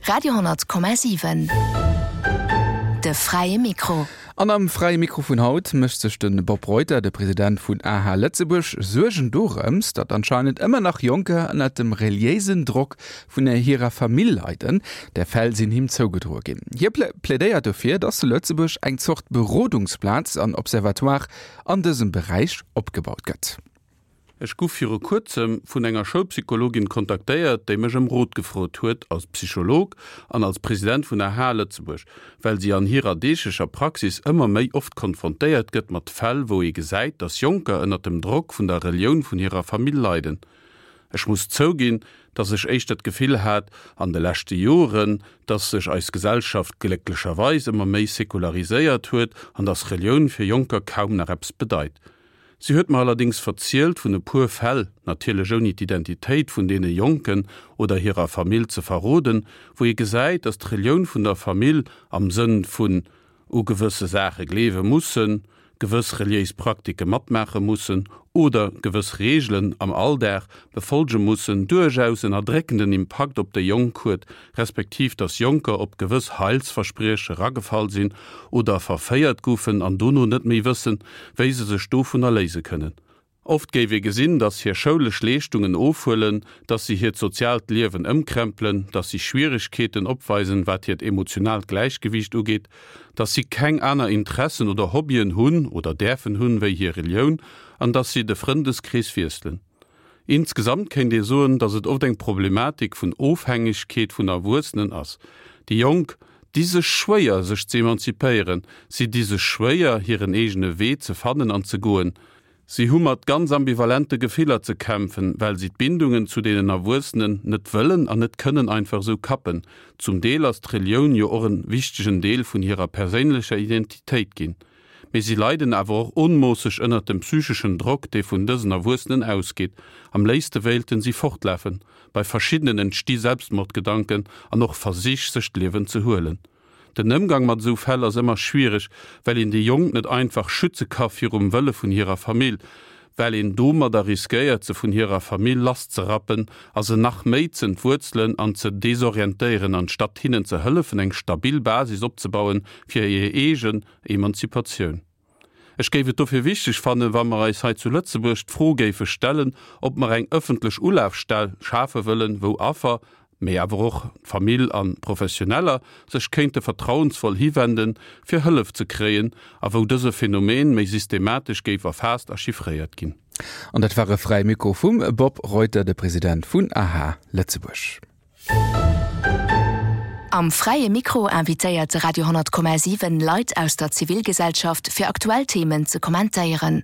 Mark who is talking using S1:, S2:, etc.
S1: Radio,7 De fräie Mikro.
S2: An am Fräie Mikro vun haut mécht sech de Bob Reuter, de President vun AH Lëtzebuerg, Suergen dorëms, datt anscheinend ëmmer nach Jonker ënnert dem reliéisen Drock vun hirer Famill leiden. Där Fäll sinn him zougedroe ginn. Hie plädéiert dofir, datt zu Lëtzebuerg eng Zort Berodungsplaz an Observatoire an dësem Beräich opgebaut gëtt.
S3: Ech guff viru kuerzem vun enger Schoulpsychologin kontaktéiert, déi mech ëm Rot gefrot huet, als Psycholog an als President vun AH Lëtzebuerg, well si an hirer deeglecher Praxis ëmmer méi oft konfrontéiert gëtt mat Fäll, wou ee gesäit, dass Jonker ënnert dem Drock vun der Relioun vun hirer Famill leiden. Ech muss zouginn, dass ech éischter d'Gefill hat an de leschte Joren, dass sech eis Gesellschaft glécklecherweis ëmmer méi sekulariséiert huet an dass Relioun fir Jonker kaum nach eppes bedeit. Si huet mer allerdéngs verzielt vun e puer Fäll, natierlech ouni d'Identitéit vun deene Jonken oder hirer Famill ze verroden, wou ee gesäit, datt d'Relioun vun der Famill, am Sënn vun u gewësse Saache gleewe mussen, gewëss reliéis Praktike matmaache mussen oder gewëss Reegelen am Alldag befolge mussen, duerchaus en erdréckenden Impakt op déi Jonk huet, respektiv dass Jonker op gewëss Heilsversprieche ragefall sinn oder verféiert goufen an dono net méi wëssen, wéi se sech dovunner léise kënnen. Oft géif ee gesinn, dass hir schoulesch Leeschtungen ofhuelen, dass si hiert soziaalt Liewen ëmkrempelen, dass si Schwieregkeeten opweisen, wat hiert emotionaalt Gläichgewiicht ugeet, dass si keng aner Interessen oder Hobbyen hunn oder däerfen hunn, wéi hir Relioun an dass si de Frëndeskrees wiesselen. Insgesamt kéint ee soen, datt et oft eng Problematik vun Ofhängegkeet vun Erwuessenen ass. Déi Jonk di sech schwéier, sech ze emanzipéieren, si di sech schwéier, hiren eegene Wee ze fannen an ze goen. Si hu mat ganz ambivalente Gefiller ze kämpfen, well si d'Bindungen zu deenen Erwuessenen net wëllen an net kënnen einfach esou kappen. Zum Deel ass d'Relioun jo och en wichtegen Deel vun hirer perséinlecher Identitéit ginn. Mee si leiden awer och onmoosseg ënnert dem psycheschen Drock, dee vun dësen Erwuessenen ausgeet. Am léifste wéilten si fortlafen. Bei verschiddenen entsti Selbstmordgedanken an och Versich, sech d'Liewen ze huelen. Den Ëmgang mat esou Fäll ass ëmmer schwiereg, well een déi Jonk net einfach schütze ka virum Wëlle vun hirer Famill, well een domadder riskéiert, se vun hirer Famill lasszerappen a se nach méi z'entwuerzelen an ze desorientéieren, anstatt hinnen ze hëllefen, eng stabil Basis opzebauen fir hir eegen Emanzipatioun. Ech géif et dofir wichteg fannen, wa mer eis hei zu Lëtzebuerg d'Fro géife stellen, ob mer eng ëffentlech Ulafstell schafe wëllen, wou Affer, mee awer och d'Famill a Professioneller sech kéinte vertrauensvoll hiwenden, fir Hëllef ze kréien, a wou dëse Phänomen méi systematesch géif erfaasst a chiffréiert ginn.
S2: An dat war e Fräie Mikro vum Bob Reuter, de President vun aha Lëtzebuerg.
S1: Am Fräie Mikro invitéiert de Radio 10,7 Leit aus der Zivilgesellschaft fir aktuell Themen ze kommentéieren.